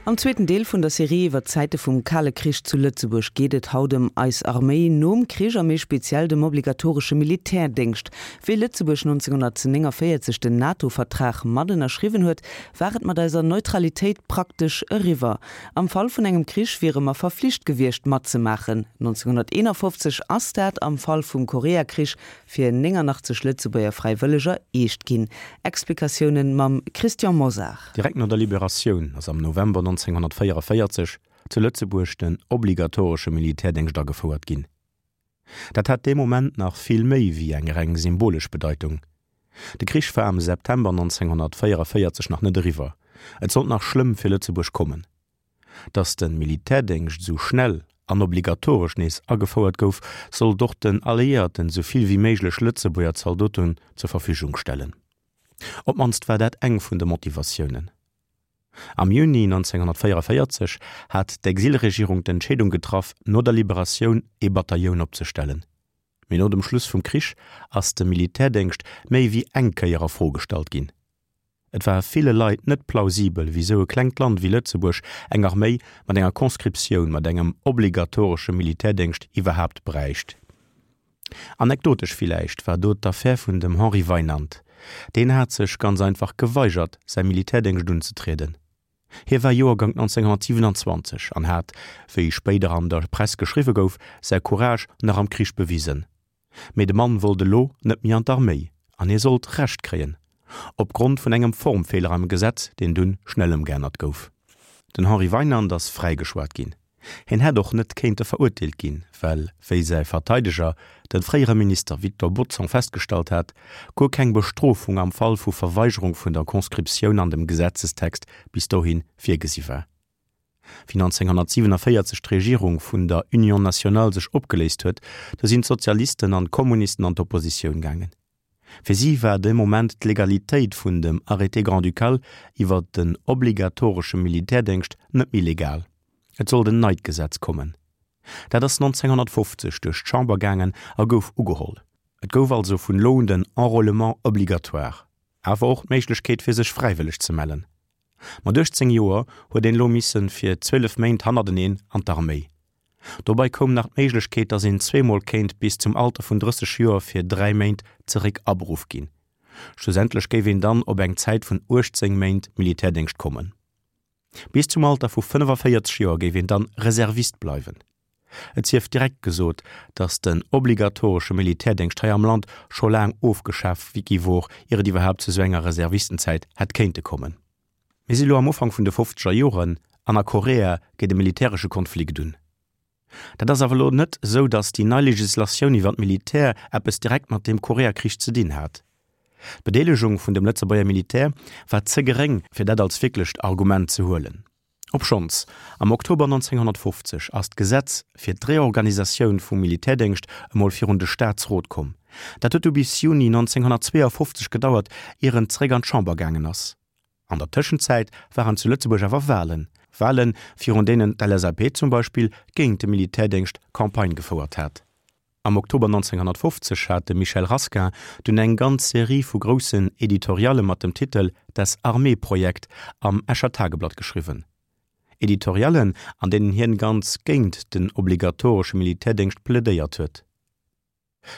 Am zweeten Deel vun der Serie iwwer d'Zäite vum Kale Krich zu Lëtzebuerg geet et haut ëm eis Arméi nom Krich a méi speziell dem obligatoresche Militärdéngscht. Wéi Lëtzebuerg 1949 den NATO-Vertrag mat ënnerschriwwen huet, war et mat eiser Neutralitéit praktesch eriwwer. Am Fall vun engem Krich wiere mer verflicht gewiescht matzemaachen. 1951 ass dat am Fall vum Koreakrich fir 89 Lëtzebuerger Fräiwëlleger eescht ginn. Explikatiounen mam Christian Mosar. Direkt no der Liberatioun ass am November 1944 zu Lëtzebuerg den obligatoresche Militärdéngscht agefouert ginn. Dat hat dee Moment nach vill méi wéi eng reng symbolesch Bedeitung. De Krich war am September 1944 nach net eriwwer, et sollt nach schlëmm fir Lëtzebuerg kommen. Datt de Militärdéngscht esou schnell an obligatoresch nees agefouert gouf, sollt och den Alliéierten esou vill wéi méiglech Lëtzebuerger Zaldoten zur Verfügung stellen. Op d'mannst war dat eng vun de Motivatiounen. Am Juni 1944 hat d'Exilregierung d'Entscheedung getraff, no der Liberatioun ee Batailloun opzestellen. Mee no dem Schluss vum Krich ass de Militärdéngscht méi wéi eng Kéier a Fro gestallt ginn. Et war ville Leit net plausibel, wisou e klengt Land wéi Lëtzebuerg eng Arméi mat enger Conscriptioun, mat engem obligatoresche Militärdéngscht iwwerhaapt bräicht. Anekdotesch villäicht war do d'Affär vun dem Henri Weinand. Deen hat sech ganz einfach geweigert, säi Militärdéngscht unzetrieden. Hie war Joergank 1927 an hat, wéi spéider an der Press geschriwwe gouf, säi Courage nach am Krich bewisen. Mee de Mann wollt elo net méi an d'Arméi an hie sollt Recht kréien, opgrond vun engem Formfeeler am Gesetz, deen dunn schnell ëmgeännert gouf. Den Henri Weinand ass fräigeschwat ginn. Hien hätt och net kéinte verurteelt ginn, well, wéi säi Verteideger, de fréiere Minister Victor Bodson festgestallt hat, guer keng Bestrofung am Fall vu Verweigerung vun der Conscriptioun an dem Gesetzestext bis dohi virgesi war. Wéi 1947 d'Regierung vun der Union nationale sech opgeléist huet, du sinn d'Sozialisten an d'Kommunisten an d'Oppositioun gaangen. Fir si war dee Moment d'Legalitéit vun dem Arrêté grand-ducal iwwer den obligatoresche Militärdéngscht net méi legal. Et sollt en neit Gesetz kommen. Dat ass 1950 duerch d'Chamber gaangen a gouf ugeholl. Et gouf also vun elo un den Enrôlement obligatoire, awer och d'Méiglechkeet fir sech fräiwëlleg ze mellen. Mat 18 Joer huet een elo missen fir 12 Méint hannerteneen an d'Arméi. Dobei koum nach d'Méiglechkeet, dass een zweemol kéint bis zum Alter vun 30 Joer fir 3 Méint zeréck aberuff ginn. Schlussendlech géif een dann op eng Zäit vun 18 Méint Militärdéngscht kommen. Bis zum Alter vu 45 Joer géif een dann Reservist bleiwen. Et sief direkt gesot, datt den obligatoresche Militärdéngscht hei am Land scho laang ofgeschaf gi wor, ier et iwwerhaapt zu sou enger Reservistenzäit hätt kéinte kommen. Mir si lo am Ufank vun de fofzeger Joren an a Korea geet e militäresche Konflikt un. Dat ass awer lo net sou, datt déi nei Legislatioun iwwer d'Militär eppes direkt mat deem Koreakrich ze dinn hat. D'Bedeelegung vun dem Lëtzebuerger Militär war ze geréng, fir dat als wierklecht Argument ze huelen. Obschonns, am Oktober 1950 ass d'Gesetz fir d'Reorganisatioun vum Militärdéngscht emol virun de Staatsrot komm. Dat huet du bis Juni 1952 gedauert, ier en zeréck an d'Chamber gaangen ass. An der Tëschenzäit waren zu Lëtzebuerg awer Walen, Walen, virun deenen d'LSAP zum Beispill géint de Militärdéngscht Campagne gefouert hat. Am Oktober 1950 hat de Michel Rasquin dunn eng ganz Serie vu groussen Editorialle mat dem Titel Das Armeeprojekt am Escher Tageblatt geschriwwen. Editoriallen, an deenen hien ganz géint den obligatoresche Militärdéngscht plädéiert huet.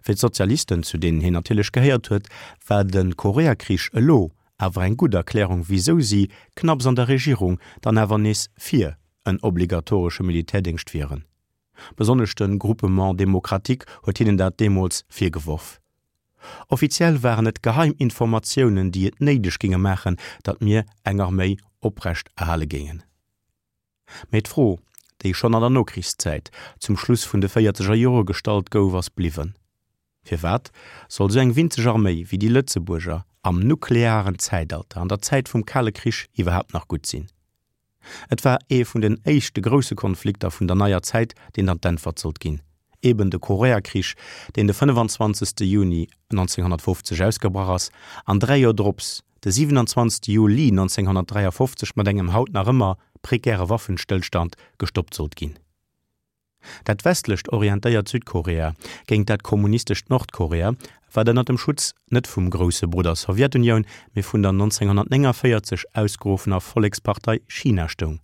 Fir d'Sozialisten, zu deenen hien natierlech gehéiert huet, war de Koreakrich elo awer eng gutt Erklärung, wisou si, knapps an der Regierung, dann awer nees fir en obligatoresche Militärdéngscht wieren. Besonnesch de Groupement démocratique huet hinnen dat deemools virgeworf. Offiziell waren et geheim Informatiounen, déi et néideg géinge maachen, datt mir eng Arméi oprecht erhale géingen. Mee d'Fro, déi schonn an der Nokrichszäit, zum Schluss vun de véierzeger Jore gestallt gouf, ass bliwwen, Firwat soll sou eng winzeg Arméi wéi déi Lëtzebuerger am nuklearen Zäitalter, an der Zäit vum Kale Krich iwwerhaapt nach gutt sinn? Et war ee vun den éischte grousse Konflikter vun der neier Zäit, deen dann d'Äntwert sollt ginn, eben de Koreakrich, deen de 25. Juni 1950 ausgebrach ass an 3 Joer drops, de 27. Juli 1953 mat engem haut nach ëmmer prekäre Waffenstëllstand gestoppt sollt ginn. Dat westlecht orientéiert Südkorea géint dat kommunistescht Nordkorea, wat ënner dem Schutz net vum grousse Brudder Sowjetunioun, mee vun der 1949 ausgeruffener Vollekspartei China stoung.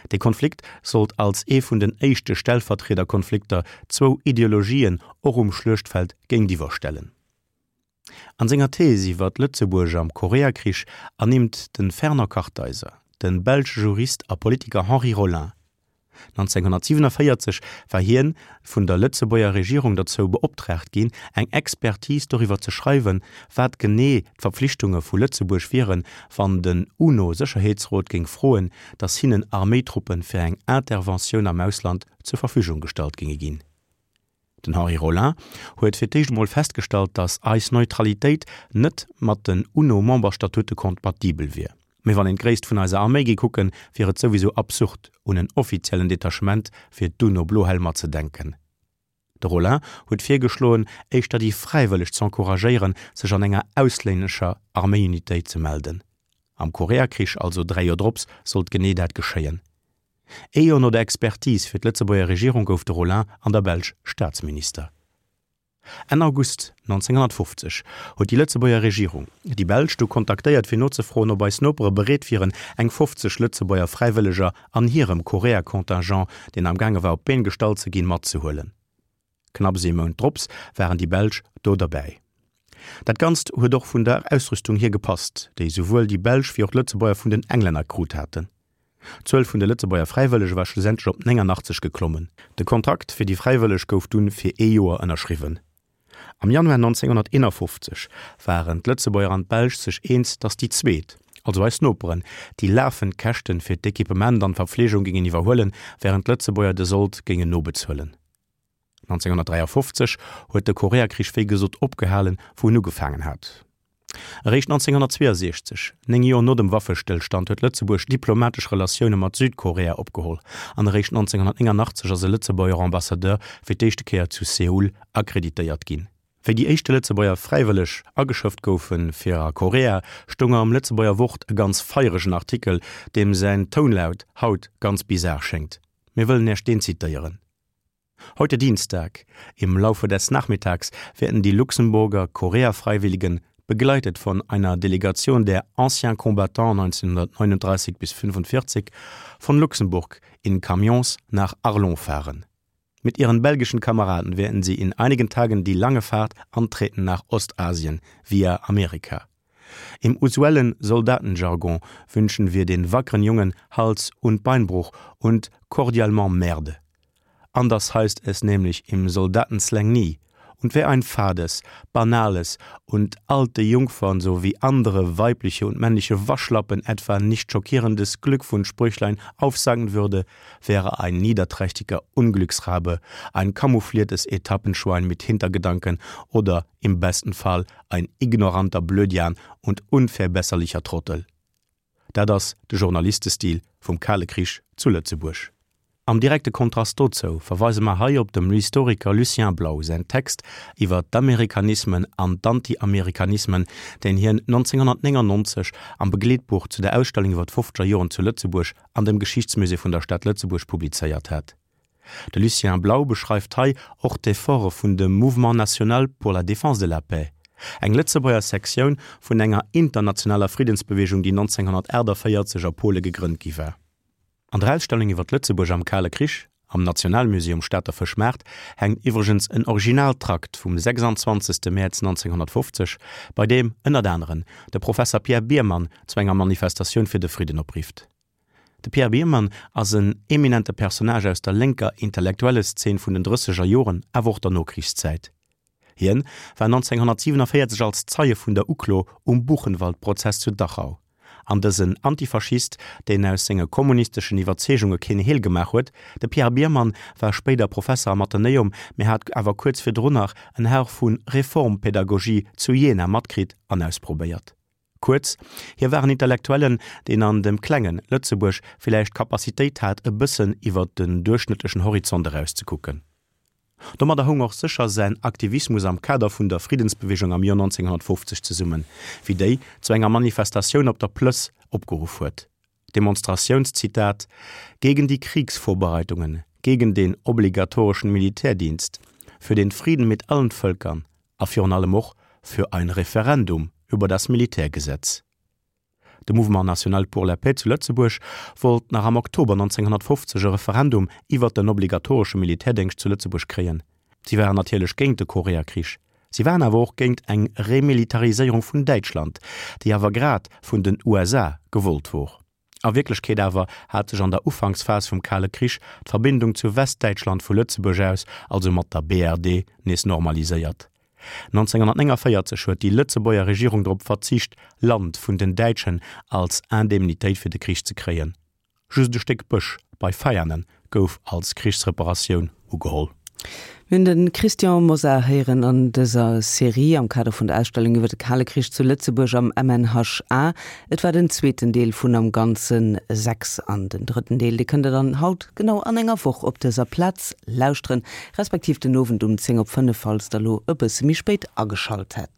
Dee Konflikt sollt als ee vun den éischte Stellvertriederkonflikter zwou Ideologien och um Schluechtfeld géintiwwer stellen. An senger Thees iwwer Lëtzebuerg am Koreakrich ernimmt de Fernand Kartheiser de belsche Jurist a Politiker Henri Rolin. 1947 war hien vun der Lëtzebuerger Regierung derzou beoptraagt ginn, eng Expertise doriwwer ze schreiwen, wat genee d'Verpflichtunge vu Lëtzebuerg wieren, wann den UNO-Sécherheetsrot géing froen, datt hinnen Arméitruppe fir eng Interventioun am Ausland zur Verfügung gestallt géinge ginn. Den Henri Rolin huet fir d'éischt emol festgestallt, datt eis Neutralitéit net mat den UNO-Memberstatute kompatibel wier. Mee wann een d'Gréisst vun eiser Arméi géi kucken, wier et souwisou absurd, un en offiziellen Detachement fir d'UNO-Blohelmer ze denken. De Rolin huet virgeschloen, éischter déi Fräiwëlleg z'encouragéieren, sech an enger auslännescher Arméiunitéit ze melden. Am Koreakrich, also 3 Joer drops, sollt genee dat geschéien. Ee Joer no der Expertise fir d'Lëtzebuerger Regierung gouf de Rolin an der Belsch Staatsminister. Enn August 1950 huet déi Lëtzebuerger Regierung déi Belsch du kontaktéiert fir nozefroen, ob eis Nopere bereet wieren, eng 50 Lëtzebuerger Fräiwëlleger an hirem Korea-Contingent, deen am gaange war op d'Been gestallt ze ginn, matzehuelen. Knapps ee Mount drops waren déi Belsch do derbäi. Dat Ganzt huet och vun der Ausrüstung hier gepasst, déi souwuel déi Belsch wéi och d'Lëtzebuerger vun den Englänner krut haten. D'Zuel vun de Lëtzebuerger Fräiwëllege war schlussendlech op 89 geklommen. De Kontrakt fir déi Fräiwëlleg gouf dunn fir ee Joer ënnerschriwwen. Am Januar 1951 waren d'Lëtzebuerger an d'Belsch sech eens, datt déi zweet, also eis Noperen, déi lafend Käschten fir d'Equipement an d'Verpflegung géingen iwwerhuelen, wärend d'Lëtzebuerger de Sold géingen nobezuelen. 1953 huet de Koreakrich wéi gesot opgehalen, wou en ugefaangen hat. Eréischt 1962, 9 Joer no dem Waffestëllstand, huet Lëtzebuerg diplomatesch Relatioune mat Südkorea opgeholl an eréischt 1989 ass e Lëtzebuerger Ambassadeur fir d'éischte Kéier zu Seoul akkreditéiert ginn. Wéi déi éischte Lëtzebuerger Fräiwëlleg ageschëfft goufe fir a Korea, stoung am Lëtzebuerger Wort e ganz feieregen Artikel, deem säin Tounlaut haut ganz bizar schéngt. Mir wëllen Iech deen zitéieren. Heute Dienstag, im Laufe des Nachmittags, werden die Luxemburger Koreafreiwilligen, begleitet von einer Delegation der Anciens Combattants 1939 bis 45, von Luxemburg in Camions nach Arlon fahren. Mit ihren belgischen Kameraden werden sie in einigen Tagen die lange Fahrt antreten nach Ostasien via Amerika. Im usuellen Soldatenjargon wünschen wir den wackeren Jungen Hals- und Beinbruch und cordialement Merde. Anders heißt es nämlich im Soldatenslang nie. Und wer ein fades, banales und alte Jungfern sowie andere weibliche und männliche Waschlappen etwa nicht schockierendes Glückwunschsprüchlein aufsagen würde, wäre ein niederträchtiger Unglücksrabe, ein camoufliertes Etappenschwein mit Hintergedanken oder im besten Fall ein ignoranter Blödian und unverbesserlicher Trottel. Dat ass de Journalistestil vum Kale Krich zu Lëtzebuerg. Am direkte Kontrast dozou verweise mer hei op dem Historiker Lucien Blau säin Text iwwer d'Amerikanismen an d'Anti-Amerikanismen, deen hien 1999 am Begleetbuch zu der Ausstellung iwwer d'Fofzeger Joren zu Lëtzebuerg an dem Geschichtsmusée vun der Stad Lëtzebuerg publizéiert hat. De Lucien Blau beschreift hei och d'Efforte vun dem Mouvement national pour la défense de la paix, eng Lëtzebuerger Sektioun vun enger internationaler Friddensbeweegung, déi 1948 a Pole gegrënnt gi war. An der Ausstellung iwwer Lëtzebuerg am Kale Krich am Nationalmusée um Stater Fëschmaart hänkt iwwregens en Originaltrakt vum 26. Mäerz 1950, bei deem ënnert aneren de Professer Pierre Biermann zu enger Manifestatioun fir de Fridden oprifft. De Pierre Biermann ass en eminente Personnage aus der lénker Intellektuelleszeen vun den drësseger Joren, awer och der Nokrichszäit. Hien war 1947 als Zeie vun der Uklo um Buchenwald-Prozess zu Dachau. An dësen Antifaschist, deen aus senge kommunisteschen Iwwerzeegunge keen Heel gemaach huet, de Pierre Biermann war spéider Professer am Athenäum, mee hat awer kuerz virdrun nach en Hauch vu Reformpädagogie zu Jena matkritt an ausprobéiert. Kuerz, hie war en Intellektuellen, deen an dem klengen Lëtzebuerg villäicht d'Capacitéit hat, e bëssen iwwer den duerchschnëttlechen Horizont erauszekucken. Domadder houng och sécher säin Aktivismus am Kader vun der Friddensbewegung am Joer 1950 zesummen, wéi déi zu enger Manifestatioun op der Plëss opgeruff huet. Demonstratiounszitat, Gegen die Kriegsvorbereitungen, gegen den obligatorischen Militärdienst, für den Frieden mit allen Völkern a virun allem och für ein Referendum über das Militärgesetz. De Mouvement National pour la Paix zu Lëtzebuerg wollt nach am Oktober 1950 e Referendum iwwert den obligatoresche Militärdéngscht zu Lëtzebuerg kréien. Si waren natierlech géint de Koreakrich. Si waren awer och géint eng Remilitariséierung vun Däitschland, déi awer grad vun den USA gewollt wor. A Wierklechkeet awer hat sech an der Ufanksphas vum Kale Krich d'Verbindung zu Westdäitschland vu Lëtzebuerg aus, also mat der BRD, nees normaliséiert. 1949 huet déi Lëtzebuerger Regierung drop verzicht, Land vun den Däitschen als Indemnitéit fir de Krich ze kréien. Just e Stéck Bësch bei Veianen gouf als Krichsreparatioun ugeholl. Mir hunn de Christian Mosar héieren an dëser Serie am Kader vun der Ausstellung iwwer de Kale Krich zu Lëtzebuerg am MNHA. Et war den zweeten Deel vun am Ganze 6 an den drëtten Deel, dee kënnt der dann haut genau an enger Woch op dëser Plaz lauschteren, respektiv den Owend um 10 op 5, falls der elo e bësse méi spéit ageschalt hätt.